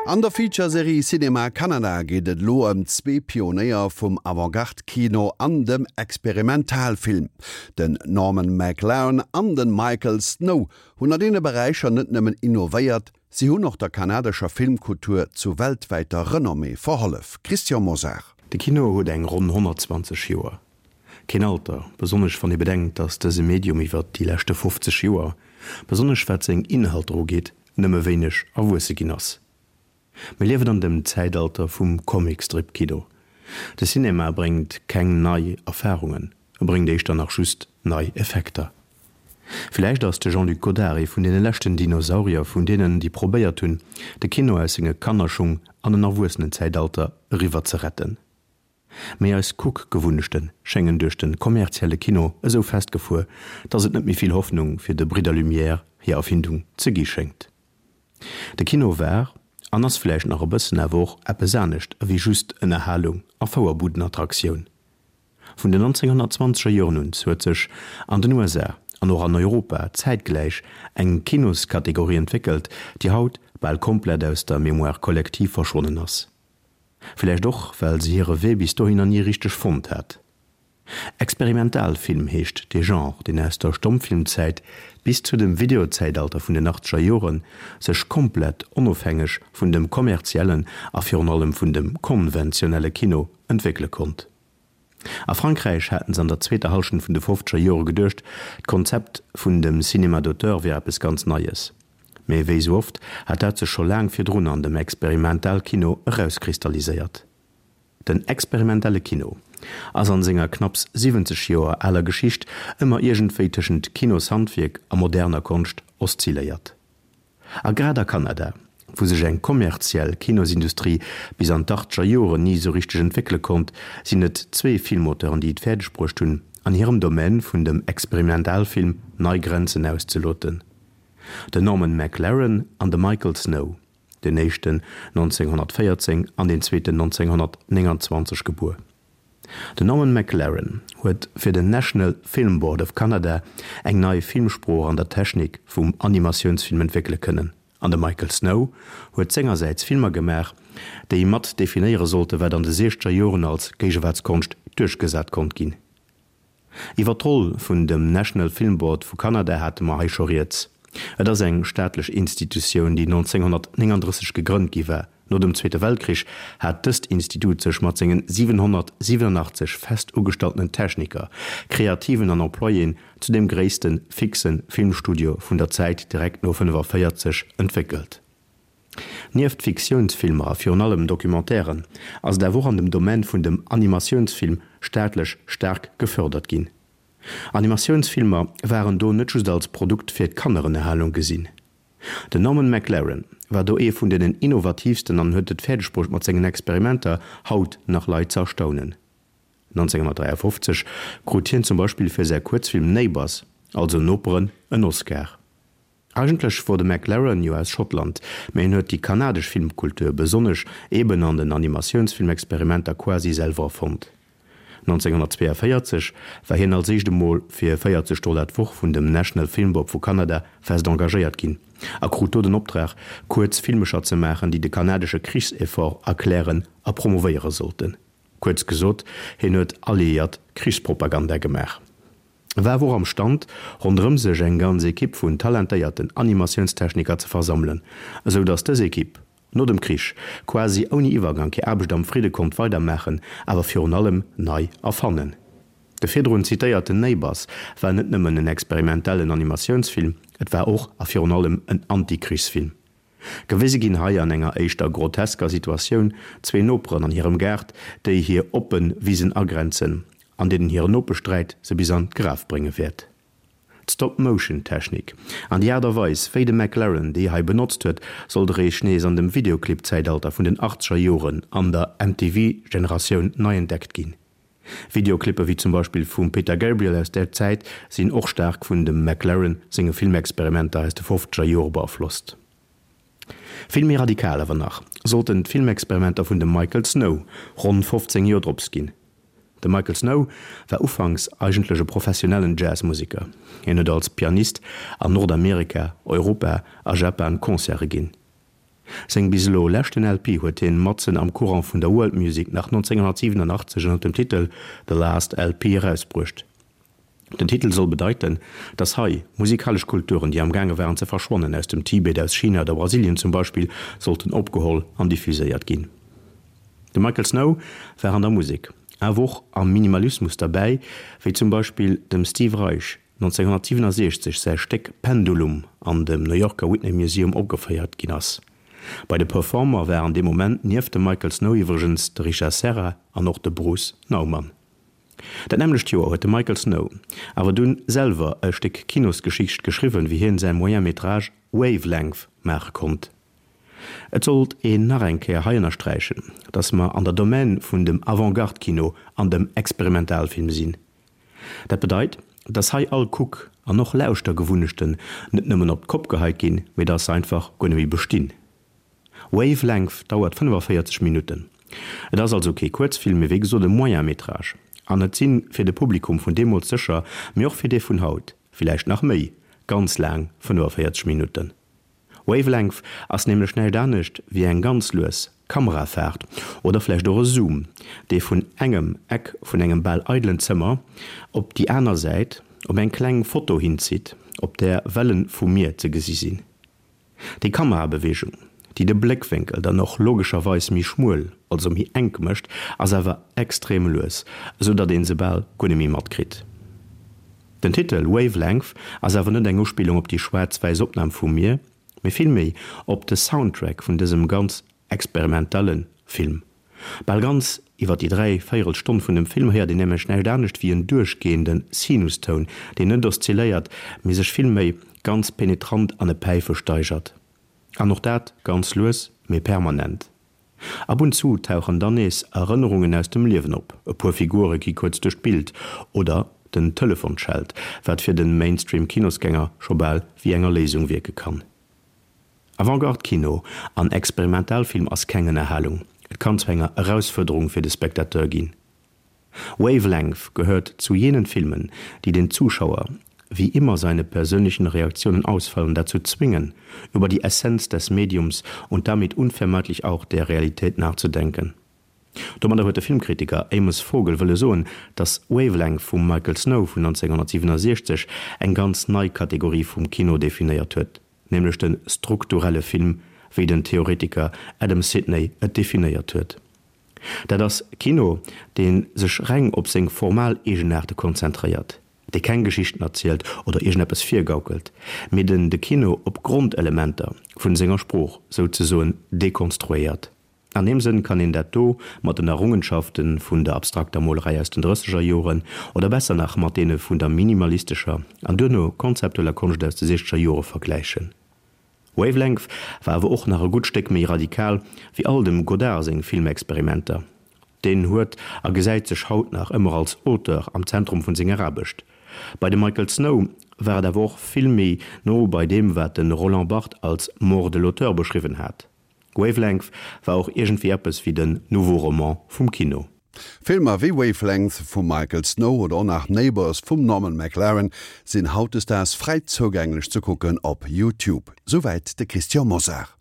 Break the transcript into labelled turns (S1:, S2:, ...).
S1: An der Feature-Serie Cinéma Canada geet et elo ëm zwee Pionéier vum Avantgarde-Kino an dem Experimentalfilm. Den Norman McLaren an de Michael Snow hunn an deene Beräicher net nëmmen innovéiert, si hunn och der kanadescher Filmkultur zu weltwäiter Renommée verhollef. Christian Mosar.
S2: De Kino huet eng ronn 120 Joer. Keen Alter, besonnesch wann ee bedenkt, datt dëse Medium iwwer déi leschte 50 Joer, besonnesch wat seng Inhalter ugeet, nëmme wéineg erwuesse ginn ass. Mir liewen an dem Zäitalter vum Comicstrip-Kino. De Cinema bréngt keng nei Erfarungen, e bréngt éischter nach just nei Effekter. Villäicht ass de Jean-Luc Godard ee vun deene leschten Dinosaurier, vun deenen, déi probéiert hunn, de Kino aus senge Kannerschung an en Erwuessenenzäitalter eriwwer ze retten. Mee eis Kuckgewunnechte schéngen duerch de kommerzielle Kino esou festgefuer, dass et net méi vill Hoffnung fir de Bridder Lumière hir Erfindung ze gi schéngt. De Kino war, an ass vläicht nach e bëssen, awer och eppes anescht ewéi just Ënnerhalung a Fouerbudenattraktioun. Vun den 1920er Joren un huet sech an den USA an och an Europa zäitgläich eng Kinoskategorie entwéckelt, déi haut bal komplett aus der Mémoire collective verschwonnen ass. Villäicht och, well se hire Wee bis dohinner ni richteg fonnt hat. Experimentalfilm heescht dee Genre, deen aus der Stommfilmzäit bis zu dem Videozäitalter vun den achtzeger Jore sech komplett onofhängeg vun dem kommerziellen a virun allem vun dem konventionelle Kino entwéckele konnt. A Frankräich haten se an der zweeter Hallschent vun de fofzeger Jore geduecht, d'Konzept vun dem Cinéma d'auteur wier eppes ganz Neies. Mee wéi sou oft hat dat sech scho laang virdrun an dem Experimentalkino erauskristalliséiert. Den experimentelle Kino ass an senger knapps 70 Joer aler Geschicht ëmmer iergendwéi tëschent Kinoshandwierk a moderner Konscht oszilléiert. A grad a Kanada, wou sech eng kommerziell Kinosindustrie bis an d'achtzeger Joren ni esou richteg entwéckele konnt, sinn et zwee Filmauteuren, déi et fäerdeg bruecht hunn, an hirem Domaine vun dem Experimentalfilm nei Grenzen auszeloten, den Norman McLaren an de Michael Snow. deen éischten 1914 an deen zweeten 1929 gebuer. Den Norman McLaren huet fir den National Film Board of Canada eng nei Filmsprooch an der Technik vum Animatiounsfilm entwéckele kënnen an de Michael Snow huet sengersäits Filmer gemaach, déi mat definéiere sollte wat an de siechzeger Joren als Géigewaartskonscht duerchgesat konnt ginn. Iwwer d'Roll vun dem National Film Board vu Kanada hate mer hei scho rieds. Et ass eng staatlech Institutioun, déi 1939 gegrënnt gi war. No dem Zweete Weltkrich hat dëst Institut sech mat sengen 787 fest ugestalltenen Techniker, Kreativen an Employéen zu dem gréisste fixe Filmstudio vun der Zäit direkt no 45 entwéckelt. Nieft Fiktiounsfilmer a virun allem Documentairen ass et awer och an dem Domaine vun dem Animatiounsfilm staatlech staark gefördert ginn. Animatiounsfilmer waren do net just als Produkt fir d'Kannerënnerhalung gesinn. Den Norman McLaren war do ee vun deenen innovatiivsten an huet et fäerdegbruecht mat sengen Experimenter haut nach Leit ze erstaunen. 1953 krut hien zum Beispill fir säi Kuerzfilm Neighbours, also Noperen, en Oscar. Eigentlech wor de McLaren jo aus Schottland, mä hien huet déi kanadesch Filmkultur, besonnesch eben an den Animatiounsfilmexperimenter quasi selwer erfonnt. 1942 war hien als éischt emol fir 40 Dollar d'Woch vun dem National Film Board vu Kanada fest engagéiert ginn a krut do den Optrag, kuerz Filmecher ze maachen, déi de kanadesche Krichseffort erklären a promovéiere sollten. Kuerz gesot, hien huet alliéiert Krichspropaganda gemaach. E war awer och am Stand, ronderëm sech eng ganz Ekipp vun talentéierten Animatiounstechniker ze versammelen, esou datt dës Ekipp no dem Krich quasi ouni Iwwergank hir Aarbecht am Fridde konnt weidermaachen, awer virun allem nei erfannen. De virdrun zitéierten Neighbours war net nëmmen en experimentellen Animatiounsfilm, et war och a virun allem en Antikrichsfilm. Gewise ginn hei an enger éischter grotesker Situatioun zwee Noperen an hirem Gaart, déi hir oppe Wisen agrenzen, an deenen hire Nopeschsträit se bis an d'Graf brénge wäert. D'Stop-Motion-Technik an déi Aart a Weis, wéi de McLaren déi hei benotzt huet, sollt eréischt nees an dem Videoclip-Zäitalter vun den achtzeger Joren an der MTV-Generatioun nei entdeckt ginn. Videoclippe wéi zum Beispill vum Peter Gabriel aus där Zäit sinn och staark vun dem McLaren senge Filmexperimenter aus de fofzeger Jore beaflosst. Vill méi radikal awer nach sollten d'Filmexperimenter vun dem Michael Snow ronn 15 Joer drops ginn. De Michael Snow war ufanks eigentlech e professionellen Jazzmuseker. Hien huet als Pianist an Nordamerika, Europa a Japan Concerte ginn. Seng bis elo leschten LP huet hien matzen am Courant vun der World Music nach 1987 ënner dem Titel The Last LP erausbruecht. Den Titel soll bedeiten, dass hei musikalesch Kulturen, déi am gaange waren ze verschwannen, aus dem Tibet, aus China oder Brasilien zum Beispill, sollten opgeholl an diffuséiert ginn. De Michael Snow war an der Musek, awer och am Minimalismus derbäi, wéi zum Beispill dem Steve Reich 1967 säi Stéck Pendulum an dem New Yorker Whitney Museum opgeféiert ginn ass. Bei de Performer waren dee Moment nieft dem Michael Snow iwwregens de Richard Serra an och de Bruce Nauman. Dat nämmlecht Joer huet de Michael Snow awer dunn selwer e Stéck Kinosgeschicht geschriwwen, wéi hien säi Moyen métrage Wavelength maache konnt. Et sollt een nach eng Kéier hei ënnersträichen, datt mer an der Domaine vun dem Avant-Garde-Kino an dem Experimentalfilm sinn. Dat bedeit, datt hei all Kuck an och Lauschtergewunnechten net nëmmen op d'Kopp geheit ginn, mee datt se einfach guer net méi bestinn. Wavelength dauert 45 Minutten. Et ass also kee Kuerzfilm, mee wéi gesot e Moyen métrage. An et si fir de Publikum vun deemools sécher, mee och fir dee vun haut, villäicht nach méi, ganz laang 45 Minutten. Wavelength ass nämlech näischt anescht wéi eng ganz lues Kamerafaart oder vläicht och e Zoom, dee vun engem Eck vun engem bal eidelen Zëmmer op déi aner Säit op eng kleng Foto hinzitt, op där Welle vum Mier ze gesi sinn. Déi Kamerabeweegung, déi de Bléckwénkel dann och logescherweis méi schmuel, also méi enk mécht, ass awer extrem lues, esou datt een se bal guer net méi matkritt. Den Titel Wavelength ass awer net eng Uspillung op déi schwaarz-wäiss Opnam vum Mier, mee villméi op de Soundtrack vun dësem ganz experimentelle Film. Bal ganz iwwer déi 3 véierel Stonn vun dem Film héiert een nämlech näischt anescht wéi en duerchgehende Sinustoun, deen net oszilléiert, mee sech villméi ganz penetrant an e Päife steigert. An och dat ganz lues, mee permanent. Ab und zu tauchen dann nees Erënnerungen aus dem Liewen op, e puer Figure gi kuerz duerch d'Bild oder den Telefon schellt, wat fir de Mainstream-Kinosgänger scho bal wéi eng Erléisung wierke kann. Avantgarde-Kino an Experimentalfilm ass keng Ënnerhalung, et kann zu enger Erausfuerderung fir de Spectateur ginn. Wavelength gehört zu jenen Filmen, die den Zuschauer, wie immer seine persönlichen Reaktionen ausfallen, dazu zwingen, über die Essenz des Mediums und damit unvermeidlich auch der Realität nachzudenken. Domadder huet de Filmkritiker Amos Vogel wëlle soen, datt Wavelength vum Michael Snow vun 1967 eng ganz nei Kategorie vum Kino definéiert huet, nämlech de strukturelle Film, wéi den Theoretiker Adam Sidney et definéiert huet. Dat ass Kino, dee sech reng op seng formal Eegenaarte konzentréiert, dee keng Geschichten erzielt oder iergendeppes virgaukelt, mee den de Kino op Grondelementer vun senger Sprooch souzesoen dekonstruéiert. An deem Sënn kann een dat do mat den Errungenschafte vun der abstrakter Molerei aus den drësseger Joren, oder besser nach mat deene vun der minimalistescher an duerno konzeptueller Konscht aus de siechzeger Jore vergläichen. Wavelength war awer och nach e gutt Stéck méi radikal wéi all dem Godard seng Filmexperimenter. Deen huet a gesäit sech haut nach ëmmer als Auteur am Zentrum vun senger Aarbecht. Bei dem Michael Snow war et awer och vill méi no bei deem wat de Roland Barthes als Mort de l'auteur beschriwwen hat. Wavelength war och iergendwéi eppes wéi den Nouveau Roman vum Kino.
S1: Filmer wéi Wavelength vum Michael Snow oder och nach Neighbours vum Norman McLaren sinn hautdesdaags fräi zougänglech ze kucken op YouTube. Souwäit de Christian Mosar.